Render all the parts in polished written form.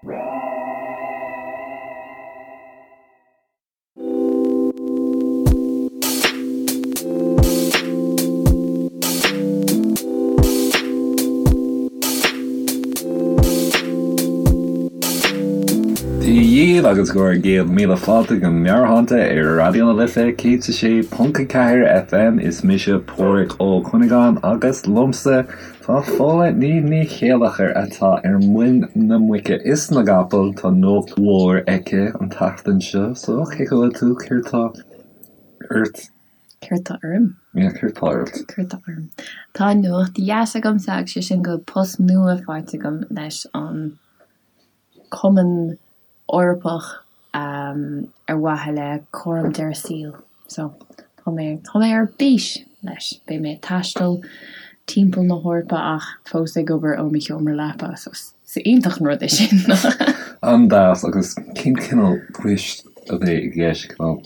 Dia dhaoibh agus go raibh 1000 fáilte go Meabhairshláinte ar Raidió na Life 106.4 FM. Is mise Páraic Ó Cuinneagáin agus liomsa tá Fódhla Ní Ní Chéilleachair atá ar muin na muice is na gcapall. Tá nuacht mhór aici an tseachtain seo so cén chaoi a bhfuil tú? Céard tá ort? Céard tá orm? Yeah, céard tá ort? Céard tá orm? Tá nuacht dheas agamsa agus sé sin go bhfuil post nua faighte agam leis an Cumann Eorpach ar mhaithe le cúram deireadh saoil. So, tá mé, tá mé ar bís leis. Beidh mé ag taisteal timpeall na hEorpa ach fós ag obair ó mo sheomra leapa, so is iontach an rud é sin. An-deas, agus cén cineál poist a bheidh i gceist? Cineál,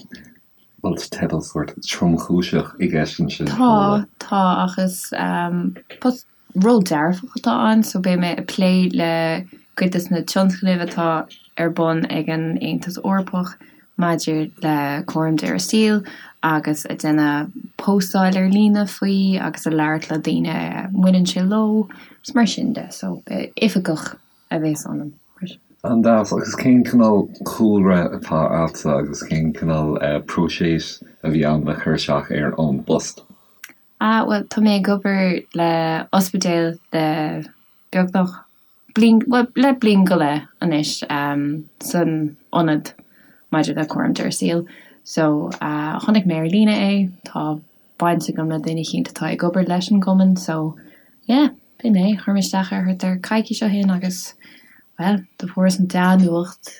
bhfuil teideal sórt tromchúiseach i gceist ansin? Tá, tá, ach is post Ról dearfach atá ann so beidh mé ag plé le cuid des na tionscnaimh atá ar bun ag an Aontas Eorpach maidir le cúram deireadh saoil agus ag déanamh póstáil ar líne faoi agus ag labhairt le daoine a mbaineann sé leo is mar sin de. So oifigeach a bhéas ionam. An-deas. Agus cén cineál cúlra atá agatsa agus cén cineál próiseas a bhí ann le cur isteach ar an bpost? Ah, bhuel, tá mé ag obair le ospidéal le beagnach bliain, bhuel, le bliain go leith anois san ionad maidir le cúram deireadh saoil. So, chonaic mé ar líne é, tá baint agam le duine eicínt atá ag obair leis an gcumann, so, yeah, b'in é, chuir mé isteach air thart ar coicís ó shin agus, bhuel, do fuaireas an dea-nuacht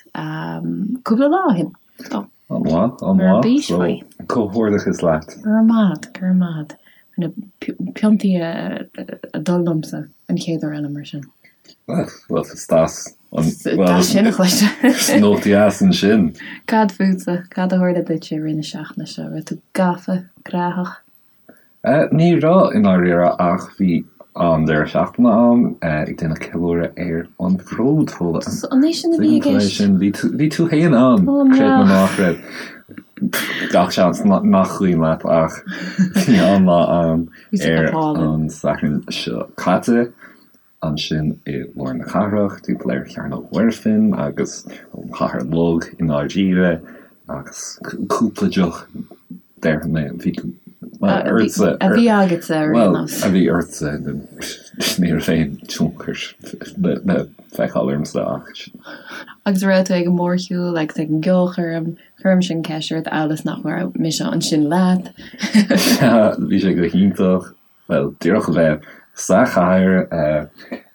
cúpla lá ó shin. So. An-mhaith, an-mhaith. So, comhghairdeachas leat. Go raibh maith agat, go raibh maith agat. Na piontaí ag dul liomsa an chéad uair eile mar sin. Bhuel, is deas. Deas sin a chloisteáil. Is nuacht dheas ansin. Cad fútsa? Cad a tharla duit i rith na seachtaine seo? Raibh tú gafa, gnóthach? Ní raibh, i ndáiríre, ach bhí an-deireadh seachtaine ann, ag déanamh ceiliúradh ar an bhród, Fódhla. An é sin a bhí i gceist? Bhí tú, bhí tú féin ann, creid nó ná creid. Gach seans nach cuimhin leat ach bhí an-lá ann ar an Satharn seo caite. ansin i lár na cathrach, timpeall ar Chearnóg Mhuirfean agus an Chathair Bhog i ndáiríre, agus cúpla deoch, déarfaidh mé, bhí ortsa. A bhí agatsa ar aon nós. Bhuel, a bhí ortsa, ní raibh aon tionchar le feiceáil ormsa ach. Agus raibh tú ag an mórshiúl agus ag an gceolchoirm, cuirimse an cheist ort amhail is nach raibh mise ansin leat. Sea, bhí sé go hiontach. bhuel, díreach a bheith sa chathair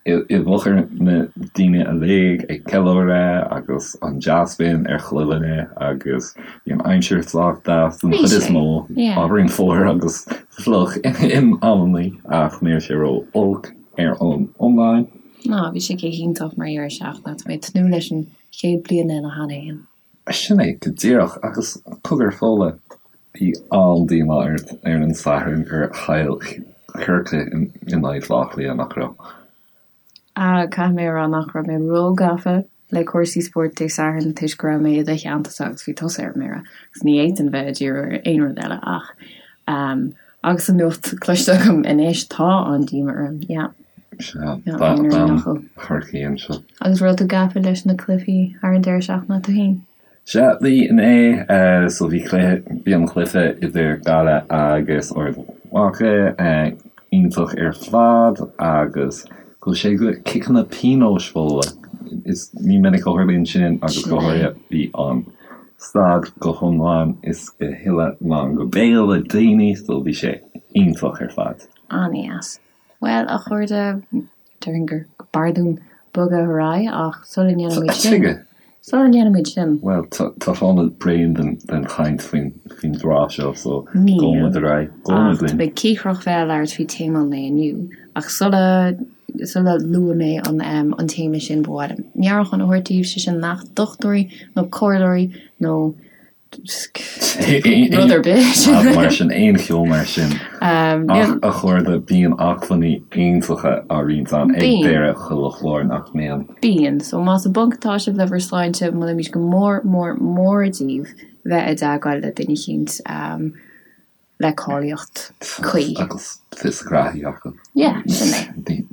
i bhfochair na daoine uilig ag ceiliúradh agus an dea-spion ar chuile dhuine agus bhí an aimsir sách deas den chuid is mó, ábhairín fuar agus fliuch in amannaí ach ní raibh sé ró-olc ar an iomlán. Ná, bhí sé go hiontach mar dheireadh seachtaine, tá mé ag tnúth leis an chéad bliain eile cheana féin. Sin é go díreach. Agus cogar Fódhla, bhí an-díomá ort ar an Satharn gur chaill Corcaigh in aghaidh Bhaile Átha Cliath, nach raibh? Ah, caithfidh mé a rá nach raibh mé róghafa le cúrsaí spóirt Dé Sathairn toisc go raibh mé i do theanntasa agus bhí tusa ar mire agus ní fhéadfainn bheith ag díriú ar aon rud eile ach ehm agus an nuacht cloiste agam anois tá an-díomá orm, yeah. Sea, bean Chorcaí anseo. Agus raibh tú gafa leis na cluichí thar an deireadh seachtaine tú féin? Sea, bhí inné, so bhí cluiche, bhí an cluiche idir Gaillimh agus Ard Mhacha iontach ar fad agus chuaigh sé go ciceanna pionóis Fódhla. Is ní minic a tharlaíonn sin agus go háirithe bhí an staid go hiomlán is go huile lán go béal le daoine so bhí sé iontach ar fad. An-dheas. Bhuel, a chairde, déarfainn gur b'fhearr dúinn bogadh ar aghaidh ach sula ndéanaimid sin, sula ndéanaimid sin. Bhuel, tá Fódhla bréan den chaint faoin dtráth seo so gabhfaidh muid ar aghaidh. Níl, ach tá mé cíocrach bheith ag labhairt faoi téama an lae inniu. Ach sula, sula lua mé an, an téama sin, ba mhaith liom meabhrúchán a thabhairt daoibh, sé sin nach dochtúirí nó comhairleoirí nó. Rud ar bith. Mar sin, aon cheo mar sin. Ach a chairde, bíonn acmhainní iontacha á roinnt ann ag deireadh chuile chlár, nach mbíonn? Bíonn. So más i bponc atá sibh le bhur sláinte, molaimid go mór mór mór daoibh bheith i dteagmháil le duine eicínt le cáilíocht cuí. Agus fios a ngraithí acu. Yeah, sin é.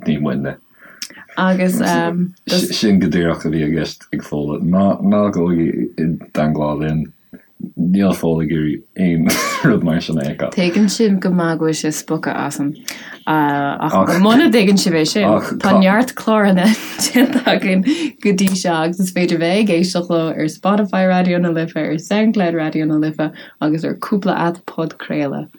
Ní muidne. Agus Sin go díreach a bhí i gceist ag Fódhla. Ná ná gabhaigí i dteangmháil linn. Níl Fódhla ag iarraidh aon rud mar sin a fheiceáil. Tuigeann sibh go maith go bhfuil sé spochta asam. Ach muna dtuigeann sibh é sin, tá neart cláranna déanta againn go dtí seo agus is féidir bheith ag éisteacht leo ar Spotify Raidió na Life, ar Soundcloud Raidió na Life agus ar cúpla aip podchraoladh.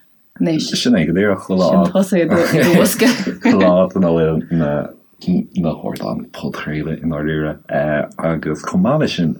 Anois. Sin é go díreach chuile áit. Sin tusa i do bhosca. Chuile áit ina bhfuil na na hardáin podchraoladh i ndáiríre. Agus chomh maith leis sin,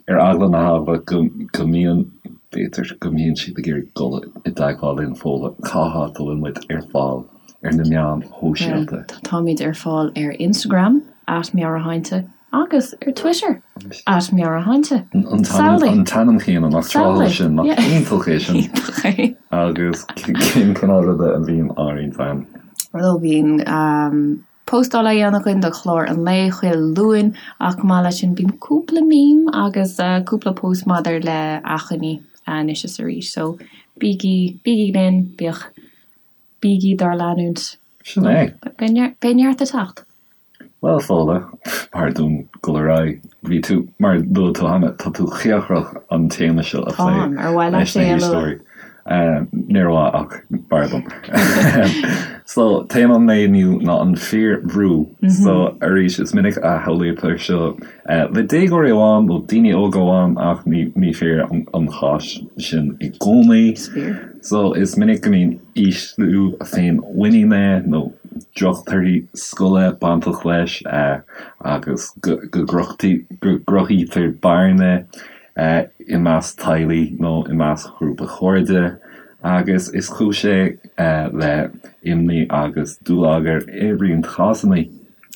ar eagla na heagla go go mbíonn, b'fhéidir go mbíonn siad ag iarraidh dul i dteagmháil linn Fódhla, cá háit a bhfuil muid ar fáil ar na meáin shóisialta? Táimid ar fáil ar Instagram, at Meabhairshláinte, Agus ar Twitter, at Meabhairshláinte. An t-ainm céanna, nach tráthúil sin, nach iontach é sin. Iontach é. Agus cén cineál ruda a bhíonn á roinnt ann? Bhuel, bíonn postáil á dhéanamh againn do chlár an lae chuile Luan ach chomh maith leis sin bíonn cúpla meme agus cúpla post maidir le achainí anois is arís. So bígí, bígí linn, bíodh, bígí dár leanúint. Sin é. Beidh neart ag teacht. Bhuel, Fódhla, b'fhearr dúinn dul ar aghaidh. Bhí tú, mar a luaigh tú cheana, tá tú cíocrach an téama seo a phlé Táim, ar mhaith leat leis na é a lua? héisteoirí. Níor mhaith ach b'fhearr dom. So, téama an lae inniu ná an phiarbhrú. So, arís, is minic a shamhlaítear seo le déagóirí amháin nó daoine óga amháin ach ní fíor an cás sin i gcónaí. Is fíor. So, is minic go mbíonn ísliú féinmhuiníne nó drochthorthaí scoile bainteach leis agus go gcruthaítear bearna i measc teaghlaigh nó i measc ghrúpa cairde agus is cúis é le imní agus dúlagar i roinnt cásanna.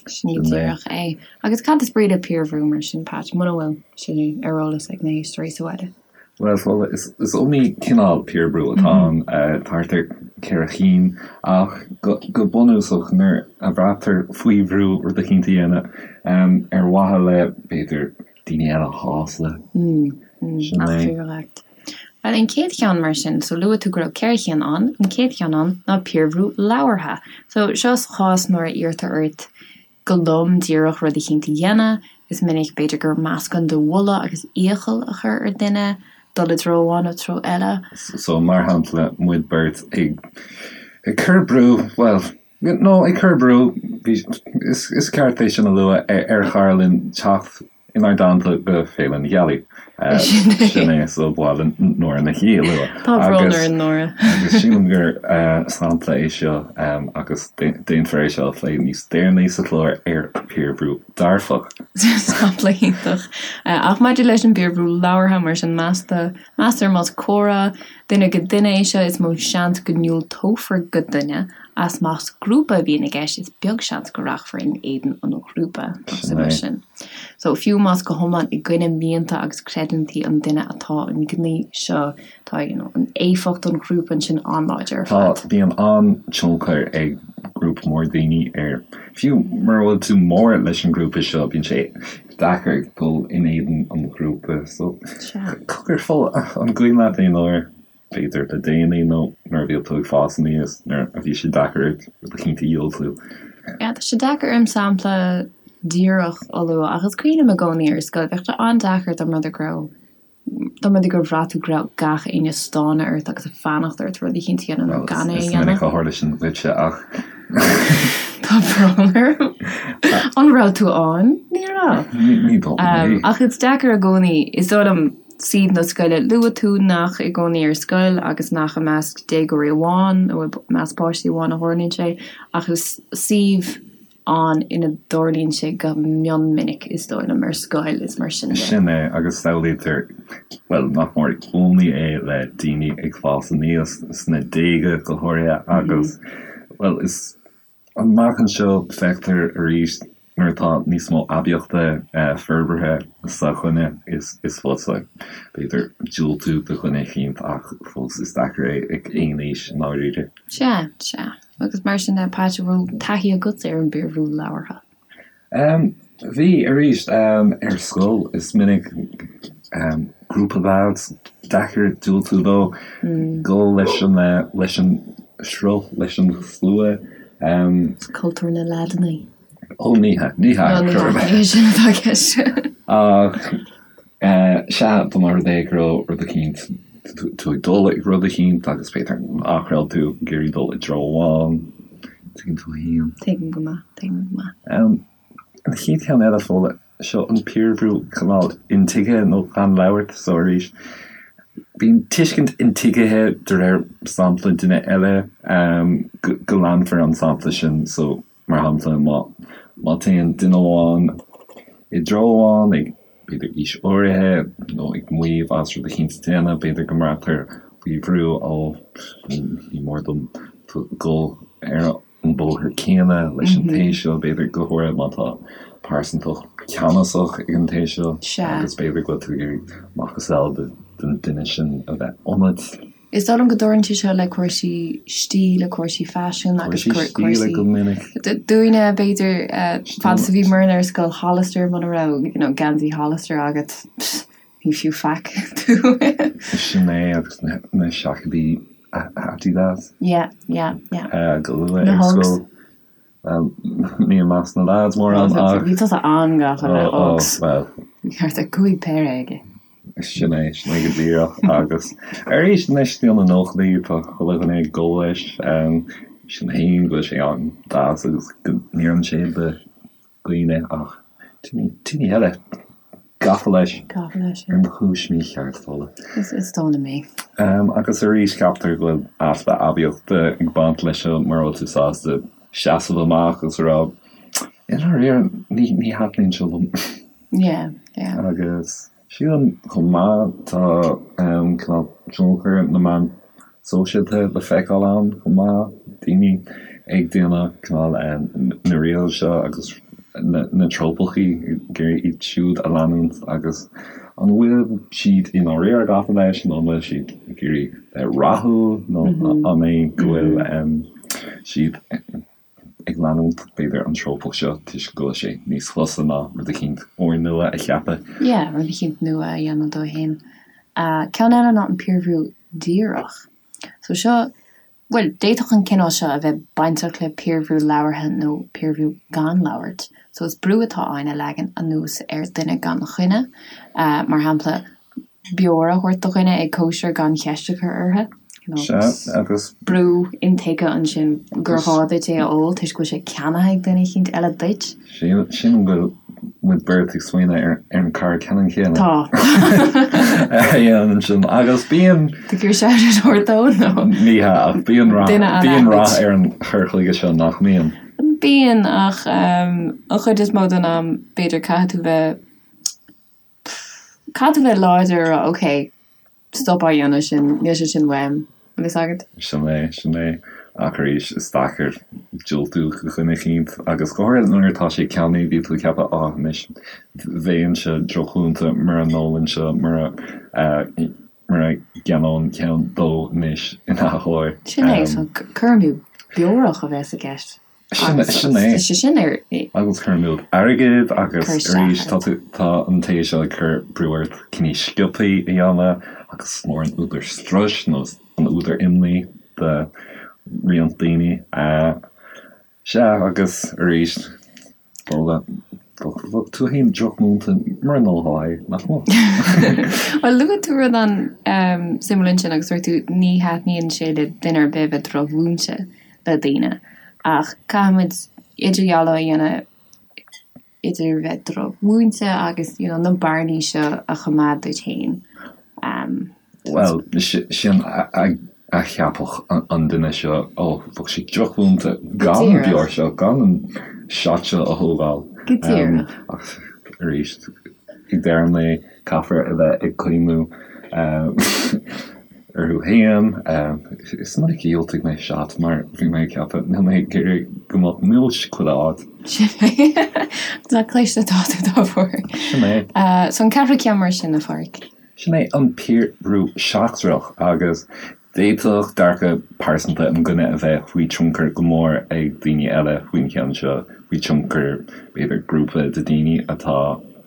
Sin go díreach é. Agus cad is brí le piarbhrú mar sin, Pat, muna bhfuil sé ar eolas ag na héisteoirí sa bhaile? Bhuel, Fódhla, is iomaí cineál piarbhrú atá ann, thart ar cheithre chinn, ach go bunúsach, nuair a bhraitear faoi bhrú rud eicínt a dhéanamh ar mhaithe le, b'fhéidir, daoine eile a shásamh. Sin é. Bhuel, an chéad cheann mar sin, so luaigh tú go raibh ceithre chinn ann, an chéad cheann ann ná piarbhrú labhartha. So seo sa chás nuair a iarrtar ort go lom díreach rud eicínt a dhéanamh. Is minic, b'fhéidir, gur meascán de mholadh agus iachall a chur ar duine dul i dtreo amháin nó treo eile. So, mar shampla, muid beirt ag ag cur brú, bhuel, no, ag cur brú, bhí, is is ceart é sin a lua, ar chara linn teacht inár dteannta go Féile na Gealaí. Sin é, so ba mhaith linn Nóra Nic Aoidh a lua. Tá brón orainn, Nóra. Agus sílim gur sampla é seo agus déanfar é seo a phlé níos deireanaí sa chlár ar piarbhrú dearfach. Sampla iontach. Ach maidir leis an bpiarbhrú labhartha, mar sin, meastar más comhrá duine go duine é seo, is mó seans go ndiúltófar do dhuine Ach más grúpa a bhíonn i gceist, is beag seans go rachfar in éadan an ghrúpa. Nach suimiúil sin? So, fiú más go hiomlán i gcoinne mianta agus creidiúintí an duine atá an gníomh seo, tá, you know, an éifeacht an ghrúpa ansin an-láidir ar fad. Tá, bíonn an-tionchar ag grúpa mór daoine ar, fiú mura bhfuil tú mór leis an ngrúpa seo, bíonn sé deacair dul in éadan an ghrúpa. So, cogar, an cuimhin leat aon uair b'fhéidir le déanaí nó nuair a bhí tú ag fás aníos, nuair a bhí sé deacair ort rud eicínt a dhiúltú. Yeah, tá sé deacair orm sampla díreach a lua ach is cuimhin liom i gcónaí ar scoil, bheadh sé an-deacair dá mba rud é go raibh, dá mba rud é gur bhraith tú go raibh gach éinne ag stánadh ort agus ag fanacht ort rud eicínt a dhéanamh nó gan é a dhéanamh. Is minic a tharla sin duitse ach. Tá brón orm. An raibh tú ann? Ní raibh. Ní dóigh liom é. Ach is deacair i gcónaí, is dóigh liom, suíomh na scoile. Luaigh tú nach i gcónaí ar scoil agus nach i measc déagóirí amháin nó i measc páistí amháin a tharlaíonn sé, ach is suíomh ann ina dtarlaíonn sé go mion minic, is dóigh liom, ar scoil is mar sin de. Sin é, agus samhlaítear, bhuel, nach mór i gcónaí é le daoine ag fás aníos, sna déaga go háirithe, agus, bhuel, is. Amach anseo, feictear arís. Nuair atá níos mó aibíochta forbartha sa dhuine, is fusa, b'fhéidir, diúltú do dhuine eicínt ach fós is deacair é ag aon aois i ndáiríre. Sea, sea. Agus mar sin de, Pat, an raibh taithí agatsa ar an bpiarbhrú labhartha? Bhí, arís, ar scoil is minic grúpa lads, deacair diúltú dó, dul leis an, leis an sruth, leis an slua. Cultúr na leaideanna. Ó, ní hea, ní hea. Ní hea, ní hea sin atá i gceist. Ach, sea, dá mba rud é go raibh rud eicínt, tú ag dul ag rud eicínt agus b'fhéidir nach raibh tú ag iarraidh dul i dtreo amháin, tuigeann tú féin. Tuigim go maith, tuigim go maith. An chéad cheann eile, Fódhla, seo an piarbhrú cineál intuigthe nó gan labhairt, so arís, bíonn tuiscint intuigthe de réir sampla duine eile, go leanfar an sampla sin, so Mar shampla, má má téann duine amháin i dtreo amháin ag, b'fhéidir, aois áirithe nó ag maíomh as rud eicínt a dhéanamh, b'fhéidir go mbraitear faoi bhrú, ó, ní mór dom dul ar an bóthar céanna leis an té seo, b'fhéidir, go háirithe má tá pearsantacht ceannasach ag an té seo agus b'fhéidir go bhfuil tú ag iarraidh macasamhail den duine sin a bheith ionat. Is dóigh liom go dtarlaíonn sé seo le cúrsaí stíle, cúrsaí faisin agus Cúrsaí stíle go minic. Dúinne, b'fhéidir, fad is a bhíomarna ar scoil Hollister, muna raibh, you know, geansaí Hollister agat, pss, ní fiú faic tú. Sin é, agus na seaicéidí Adidas. Yeah, yeah, yeah. Go luath ar scoil. Bhuel, ní i measc na lads mórán ach. Bhí tusa an-gafa le Uggs. Bhuel. Bhí thart ar 5 péire aige. Sin é, sin é go díreach. Agus arís anois sna nóchaidí tá chuile dhuine ag dul leis. Sin féin go bhfuil sé an-deas agus go n-oireann sé do dhaoine ach daoine eile gafa leis. Gafa leis, yeah. Ar chúis mícheart, Fódhla. Is dóigh liom é. Agus arís ceaptar go bhfuil easpa aibíochta ag baint leis seo mura bhfuil tú sásta seasamh amach agus a rá, i ndáiríre, ní ní thaitníonn seo liom. Yeah, yeah. Agus sílim chomh maith tá cineál tionchar na meán sóisialta le feiceáil ann chomh maith, daoine ag déanamh cineál na reels seo agus na trópachaí ag iarraidh iad siúd a leanúint agus an bhfuil siad i ndáiríre gafa leis nó an bhfuil siad ag iarraidh bheith rathúil nó an é go bhfuil siad ag leanúint, b'fhéidir, an trópach seo toisc go bhfuil sé níos fusa ná rud eicínt úrnua a cheapadh. Yeah, rud eicínt nua a dhéanamh dó fhéin. Ceann eile ná an piarbhrú díreach. So seo, bhuel, d'fhéadfadh an cineál seo a bheith bainteach le piarbhrú labhartha nó piarbhrú gan labhairt. So is brú atá ann a leagan anuas ar dhuine gan choinne. Mar shampla, beoir a thabhairt do dhuine ag cóisir gan cheist a chur orthu. Sea, agus. Brú intuigthe ansin gur ghá duit é a ól toisc go bhfuil sé ceannaithe ag duine eicínt eile duit. Sílim go bhfuil muid beirt ag smaoineamh ar an cara ceannann céanna. Tá. A dhéanann sin agus bíonn. Tú ag iarraidh shout out a thabhairt dó nó? Ní hea, ach bíonn rath, bíonn rath ar an chur chuige seo nach mbíonn? Bíonn, ach an chuid is mó den am b'fhéidir caithfidh tú bheith Caithfidh tú bheith láidir a rá ok, stop á dhéanamh sin, níl sé sin uaim, an bhfuil fhios agat? Sin é, sin é. Ach arís, is deacair diúltú do dhuine eicínt agus go háirithe nuair atá sé ceannaithe, bíonn tú ag ceapadh á anois bheinnse drochmhúinte mura n-ólfainnse, mura mura gceannóinn ceann dó anois in athuair. Sin é, so cur amú beorach a bheas i gceist. Sin é. Tá sé sin ar. Agus cur amú airgid agus arís tá tú, tá an té seo ag cur brú ort cinní sciobthaí a dhéanamh agus is mór an údar struis nó an údar imní do roinnt daoine. Sea, agus arís, Fódhla, bheadh tú féin drochmhúinte mura n-ólfá é, nach mbeadh? Bhuel, luaigh tú rud an-suimiúil ansin agus dúirt tú ní thaitníonn sé le duine ar bith bheith drochmhúinte le daoine. Ach caithfimid idirdhealú a dhéanamh idir bheith drochmhúinte agus you know na bearnaí seo a choimeád duit féin. Bhuel, sin a cheapfadh an duine seo, ó, bheadh sé drochmhúinte gan an beoir seo, gan an shot seo a thógáil. Go díreach. Ach arís, ag deireadh an lae, caithfear a bheith ag cuimhniú. orthu féin. Is minic a dhiúltaigh mé shot mar bhí mé ag ceapadh níl mé ag iarraidh go mbeadh múis chuile áit. Sin é. Nach cliste atá tú dá bharr. Sin é. So an ceathrú ceann mar sin, a Pháraic? Sin é an piarbhrú seachtrach agus d'fhéadfadh dearcadh pearsanta an duine a bheith faoi tionchar go mór ag daoine eile faoin cheann seo, faoi tionchar b'fhéidir grúpa de daoine atá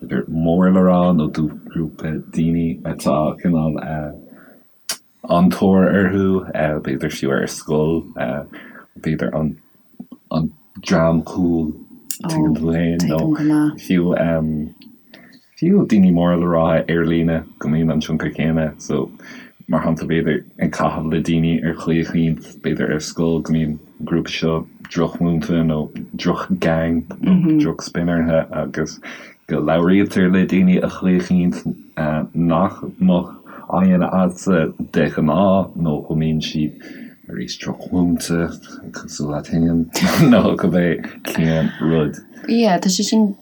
b'fhéidir mór le rá nó grúpa daoine atá cineál an-tóir orthu, b'fhéidir fiú ar scoil, b'fhéidir an an dream cool, tuigeann tú féin, nó fiú fiú daoine móra le rá ar líne go mbíonn an tionchar céanna. So, mar shampla, b'fhéidir ag caitheamh le daoine ar chaoi eicínt, b'fhéidir ar scoil go mbíonn an grúpa seo drochmhúinte nó droch-gang nó droch-spin orthu agus go labhraítear le daoine ar chaoi eicínt nach mbeadh á dhéanamh agatsa de ghnáth nó go mbíonn siad arís drochmhúinte cosúil leat féin nó cibé cén rud. Yeah, tá sé sin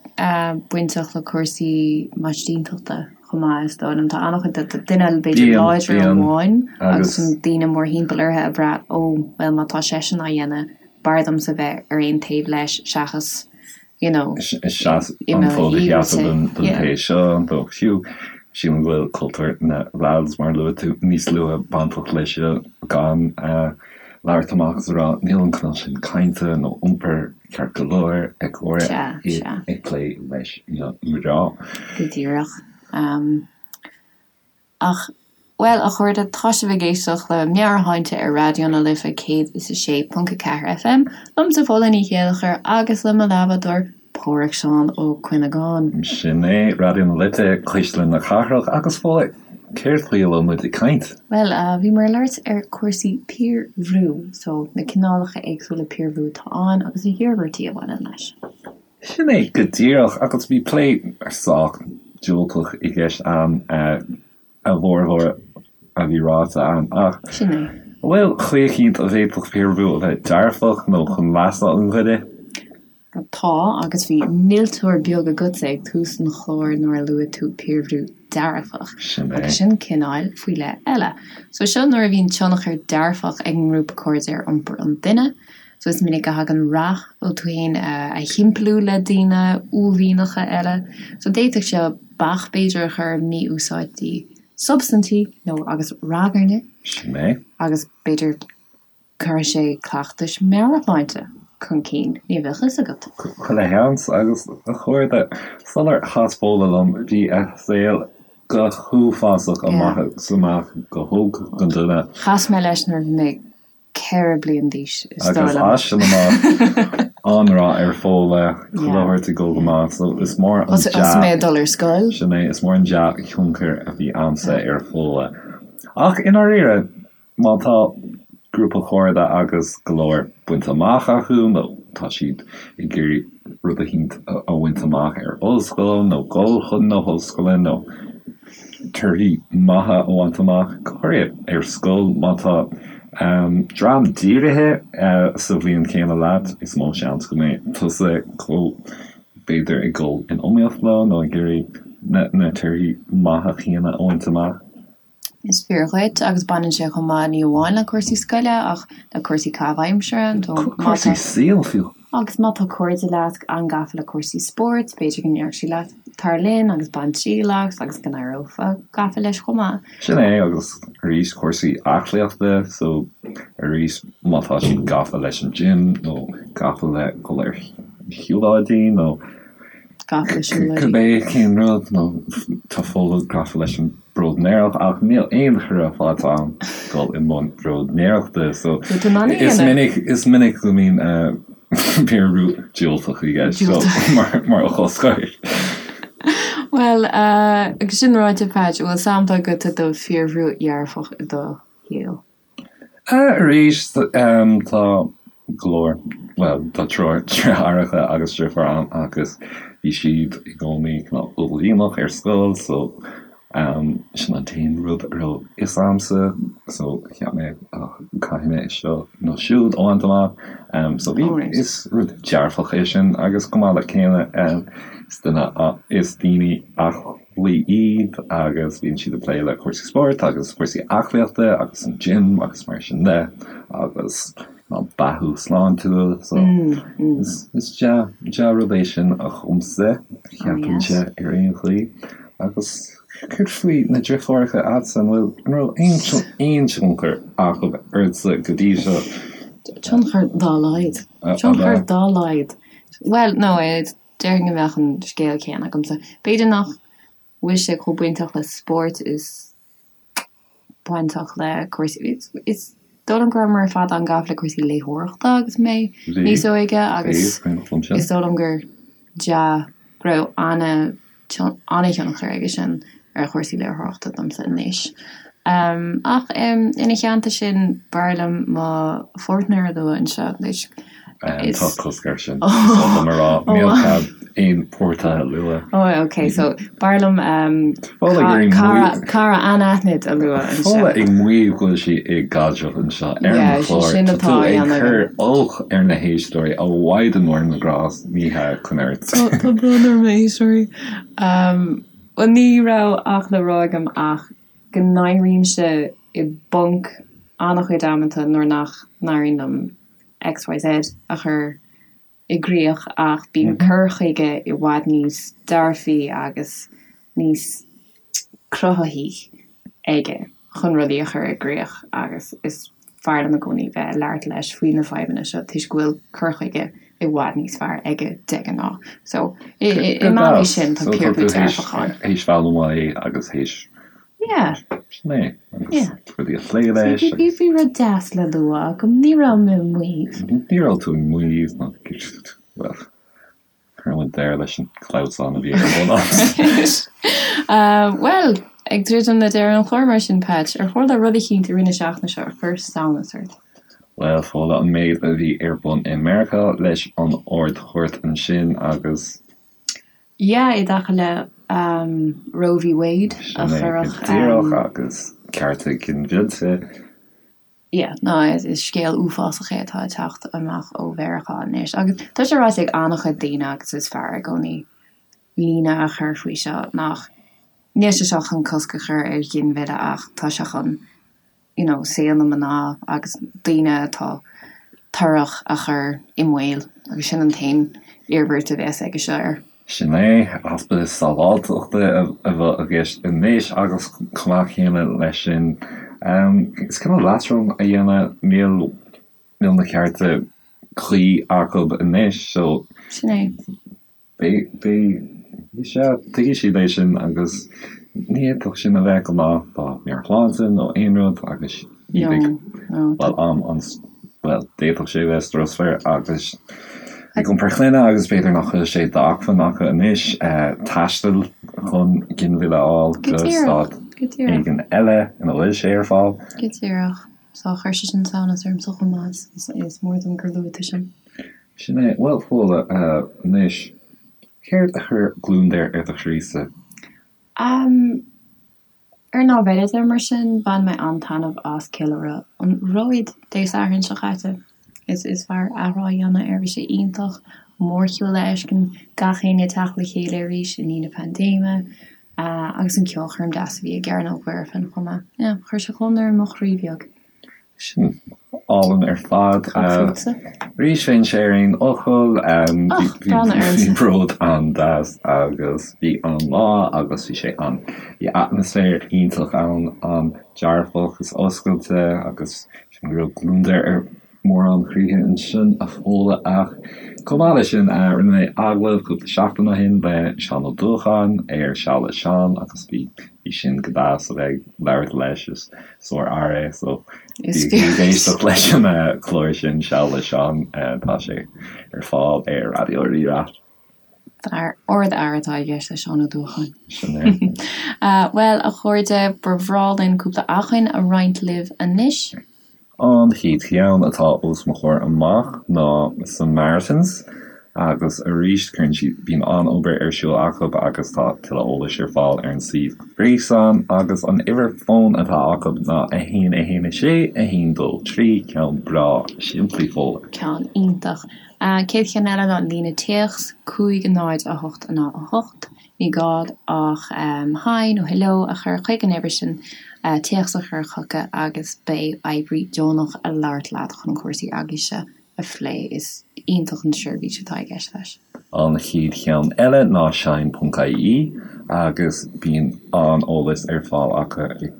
bainteach le cúrsaí maistíntachta chomh maith, is dóigh liom. Tá an-chuid de duine b'fhéidir láidir amháin agus daoine mórthimpeall orthu ag brath, ó, bhuel má tá seisean á dhéanamh, b'fhearr domsa bheith ar aon taobh leis seachas you know, Seas an fód a sheasamh don té seo, nó fiú, sílim go bhfuil cultúr na lads, mar a luaigh tú níos luaithe, bainteach leis seo, gan labhairt amach is a rá níl an cineál sin cainte nó iompair ceart go leor ag comhrá ag plé leis na mná. Go díreach. Ach, bhuel, a chairde, tá sibh ag éisteacht le Meabhairshláinte ar Raidió na Life 106.4 FM, liomsa Fódhla Ní Chéilleachair agus le mo leathbhádóir Páraic Seán Ó Cuinneagáin. Sin é, Raidió na Life, Cuisle na Cathrach, agus Fódhla, céard faoi a bhfuil muid ag caint? Bhuel, bhíomar ag labhairt ar chúrsaí piarbhrú, so na cineálacha éagsúla piarbhrú atá ann agus na hiarmhairtí a bhaineann leis. Sin é go díreach, agus bhí plé sách diúltach i gceist ann, a bhformhór a bhí ráite ann, ach Sin é. an bhfuil chaoi eicínt a bhféadfadh piarbhrú a bheith dearfach nó chun leasa an dhuine? Tá, agus bhí milteoir beag agatsa ag tús an chláir nuair a luaigh tú piarbhrú dearfach. Sin é. Agus sin cineál faoi leith eile. So seo nuair a bhíonn tionchar dearfach ag an ngrúpa cairde ar iompar an duine. So is minic a thagann rath ó tú féin a thimpeallú le daoine uaillmhianacha eile. So d'fhéadfadh seo bac b'fhéidir a chur ar mhí-úsáidí substaintí nó agus ragairne. Sin é. Agus b'fhéidir cuirfidh sé cleachtais meabhairshláinte chun cinn, ní bheadh fhios agat. Chuile sheans agus a chairde, sular chas Fódhla liom bhí a saol go huafásach amach is amach go holc don duine. Chas mé leis nuair a bhí mé 4 bliain d'aois, is dóigh liom. Agus as sin amach, an-rath ar Fódhla, chuile shórt ag dul go maith, so is mór an dea. Thosaigh mé ag dul ar scoil. Sin é, is mór an dea-thionchar a bhí a'msa ar Fódhla. Ach i ndáiríre, má tá grúpa cairde agus go leor bainte amach acu nó tá siad ag iarraidh rud eicínt a bhaint amach ar ollscoil nó dul chun na hollscoile nó torthaí maithe a bhaint amach, go háirithe ar scoil má tá dream dírithe sa bhliain chéanna leat, is mó seans go mbeidh tusa chomh, b'fhéidir, ag dul in iomaíocht leo nó ag iarraidh na torthaí maithe céanna a bhaint amach. Is fíor dhuit, agus baineann sé chomh maith ní amháin le cúrsaí scoile ach le cúrsaí caitheamh aimsire, nó má tá. Cúrsaí saoil fiú. Agus má tá cairde leat an-gafa le cúrsaí spóirt, b'fhéidir go ndéarfadh siad leat tar linn agus bain triail as agus go n-éireofá gafa leis chomh maith. Sin é, agus arís cúrsaí aclaíochta, so arís má tá siad gafa leis an gym nó gafa le dhul ar shiúlóidí nó Gafa le siúlóidí. Cibé cén rud, nó tá Fódhla gafa leis an bróidnéireacht ach níl aon chuireadh faighte agam dul i mbun bróidnéireachta so is minic is minic go mbíonn piarbhrú diúltach i gceist so mar mar fhocal scoir. Bhuel, agus sin ráite, Patch, an bhfuil sampla agat de phiarbhrú dhearfach i do shaol? Arís, tá go leor, bhuel, tá triúr deartháireacha agus deirfiúr agam agus bhí siad i gcónaí cineál uaillmhianach ar scoil so. Sin an t-aon rud a raibh fhios a'msa so cheap mé oh caithfidh mé seo nó siúd a bhaint amach. So bhí, is rud dearfach é sin agus chomh maith le céanna is duine, is daoine aclaí iad agus bíonn siad ag plé le cúrsaí spóirt agus cúrsaí aclaíochta agus an gym agus mar sin de agus ná beathú sláintiúil so is dea-rud é sin dhomsa, cheapfainnse ar aon chaoi. Agus céard faoi na deartháireacha a'dsa, an bhfuil, an raibh aon tionchar acu ortsa go dtí seo? Tionchar dá laghad. Tionchar dá laghad. Bhuel, no, déarfainn go mbeadh an scéal céanna agamsa. B'fhéidir nach bhfuil sé chomh bainteach le spórt is bainteach le cúrsaí, is dóigh liom go rabhamar ar fad an-gafa le cúrsaí léitheoireachta agus mé níos óige agus is dóigh liom gur dea, go raibh an-thionchar aige sin ar chúrsaí léitheoireachta domsa anois. Ach ina theannta sin, b'fhearr liom mo pháirtnéir a lua anseo anois. Tá cosc air sin, is oth liom a rá, níl cead aon pháirtithe a lua. Ó, ok, so b'fhearr liom cara, cara anaithnid a lua anseo. Fódhla ag maíomh go bhfuil sí i gcaidreamh anseo ar an chlár. Tá tú ag cur olc ar na héisteoirí, a Mhaighdean Mhór na nGrást, ní hea, coinnigh ort. Tá brón orm a éisteoirí. Bhuel, ní raibh ach le rá agam ach go n-éirímse i bponc an-chuid amanta nuair nach n-éiríonn liom XYZ a chur i gcrích ach bíonn cur chuige i bhfad níos dearfaí agus níos cruthaithí aige chun rudaí a chur i gcrích agus is fearr liom i gcónaí bheith ag labhairt leis faoi na fadhbanna seo toisc go bhfuil cur chuige i bhfad níos fearr aige de ghnáth. So, i mbealaí sin tá piarbrú dearfach ann. Théis foghlaim uaidh agus théis Yeah. Sin é. Agus Yeah. rudaí a phlé leis Bhí agus. bhí rud deas le lua agam, ní raibh mé ag maíomh. Ní raibh tú ag maíomh ná bhuel, chuir muid deireadh leis an clamhsán a bhí ar bun agat. Bhuel, ag druidim le deireadh an chláir mar sin, Patch, ar tharla rud eicínt i rith na seachtaine seo a chuir samhnas ort? Bhuel, Fódhla, an méid a bhí ar bun i Meiriceá leis an Ard-Chúirt ansin agus. Yeah, i dtaca le Roe v. Wade a Sin é go cuireadh. díreach agus cearta ginmhillte. Yeah, no, is scéal uafásach é atá ag teacht amach ó Mheiriceá anois agus tá sé ráite ag an-chuid daoine agus is fearr i gcónaí líne a chur faoi seo nach níl sé seo chun cosc a chur ar ghinmhilleadh ach tá sé chun you know, saol na mná agus daoine atá torrach a chur i mbaol agus sin an t-aon iarmhairt a bheas aige seo air. Sin é, easpa sábháilteachta a bheadh i gceist anois agus chomh maith céanna leis sin, is cineál leatrom a dhéanamh, níl níl na cearta cuí acu anois so. Sin é. Beidh, beidh, sea, tuigfidh siad é sin agus ní fhéadfadh sin a bheith go maith dá meabhairshláinte nó aon rud agus iad ag, bhuel, am an, bhuel, d'fhéadfadh sé a bheith strusmhar agus ag iompar clainne agus b'fhéidir nach bhfuil sé d'acmhainn acu anois taisteal chun ginmhilleadh a fháil go stát éigin eile ina bhfuil sé ar fáil. Go díreach. So chuir sé sin samhnas ormsa chomh maith, is mór dom gur luaigh tú sin. Sin é. Bhuel, Fódhla, anois, céard a chuir gliondar ar do chroí-sa? Am, ar an lámh eile de, mar sin, bhain mé an-taitneamh as Ceiliúradh an Bhróid Dé Sathairn seo caite. Is, is fearr athrá a dhéanamh air, bhí sé iontach, mórshiúl a fheiscint, gach éinne ag teacht le chéile arís i ndiaidh na paindéime, agus an ceolchoirm deas a bhí i gCearnóg Mhuirfean chomh maith. Yeah, chuir sé gliondar ar mo chroí bheag. Sin álainn ar fad. Arís bheinn ar aon fhocal. Bhí Bród an-deas agus bhí an-lá agus bhí sé an, bhí atmaisféar iontach ann, an-dearfach is oscailte agus sin go raibh gliondar ar mórán croíthe ansin a Fhódhla ach chomh maith leis sin rinne mé agallamh cúpla seachtain ó shin le Seán Ó Dúacháin ar Seal le Seán agus bhí bhí sin go deas a bheith ag labhairt leis is sár-fhear é so bígí ag éisteacht leis an chlár sin Seal le Seán tá sé ar fáil ar Raidió Rí-Rá. Fear, ardfhear atá i gceist le Seán Ó Dúacháin. Sin é. Bhuel, a chairde, ba bhreá linn cúpla acmhainn a roinnt libh anois. An chéad cheann atá os mo chomhair amach ná Samaritans. Agus arís, cuireann siad, bíonn an-obair ar siúl acu agus tá tuilleadh eolais ar fáil ar an suíomh gréasáin agus an uimhir fóin atá acu ná 1 1 6 1 2 3, ceann breá simplí Fódhla. Ceann iontach. Chéad cheann eile ná líne téacs, 5 0 8 0 8. Ní gá ach hi nó hello a chur chuig an uimhir sin, téacs a chur chucu agus beidh oibrí deonach ag labhairt leat chun cúrsaí eaglaise a phlé. Is iontach an tseirbhís atá i gceist leis. An chéad cheann eile ná shine ponc ie agus bíonn an-eolas ar fáil acu i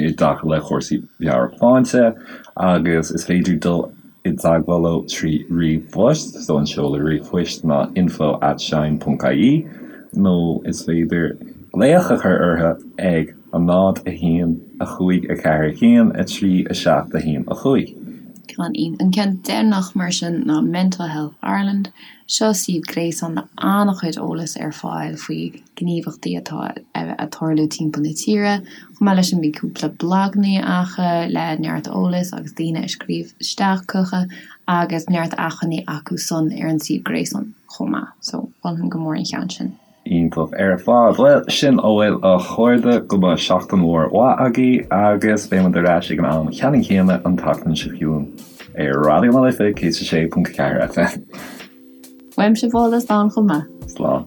i dtaca le cúrsaí meabhairshláinte agus is féidir dul i dteagmháil leo trí ríomhphost, so an seoladh ríomhphoist ná info at shine ponc ie nó is féidir glaoch a chur orthu ag 0, 1, 5, 4, 1, 3, 7, 1, 5. Ceann An ceann deireanach mar sin ná Mental Health Ireland. Seo suíomh gréasáin le an-chuid eolas ar fáil faoi ghníomhachtaí atá ag tarlú timpeall na tíre. Chomh maith leis sin bíonn cúpla blagannaí acu le neart eolais agus daoine ag scríobh isteach chucu agus neart acmhainní acu san ar an suíomh gréasáin chomh maith. So, mholfainn go mór an cheann sin. Iontach ar fad. Bhuel, sin a bhfuil a chairde, go mbeidh seachtain mhór mhaith agaibh agus beidh muid ar ais ag an am ceannann céanna an tseachtain seo chugainn ar Raidió na Life 106.4 FM. Uaimse Fódhla slán chomh maith. Slán.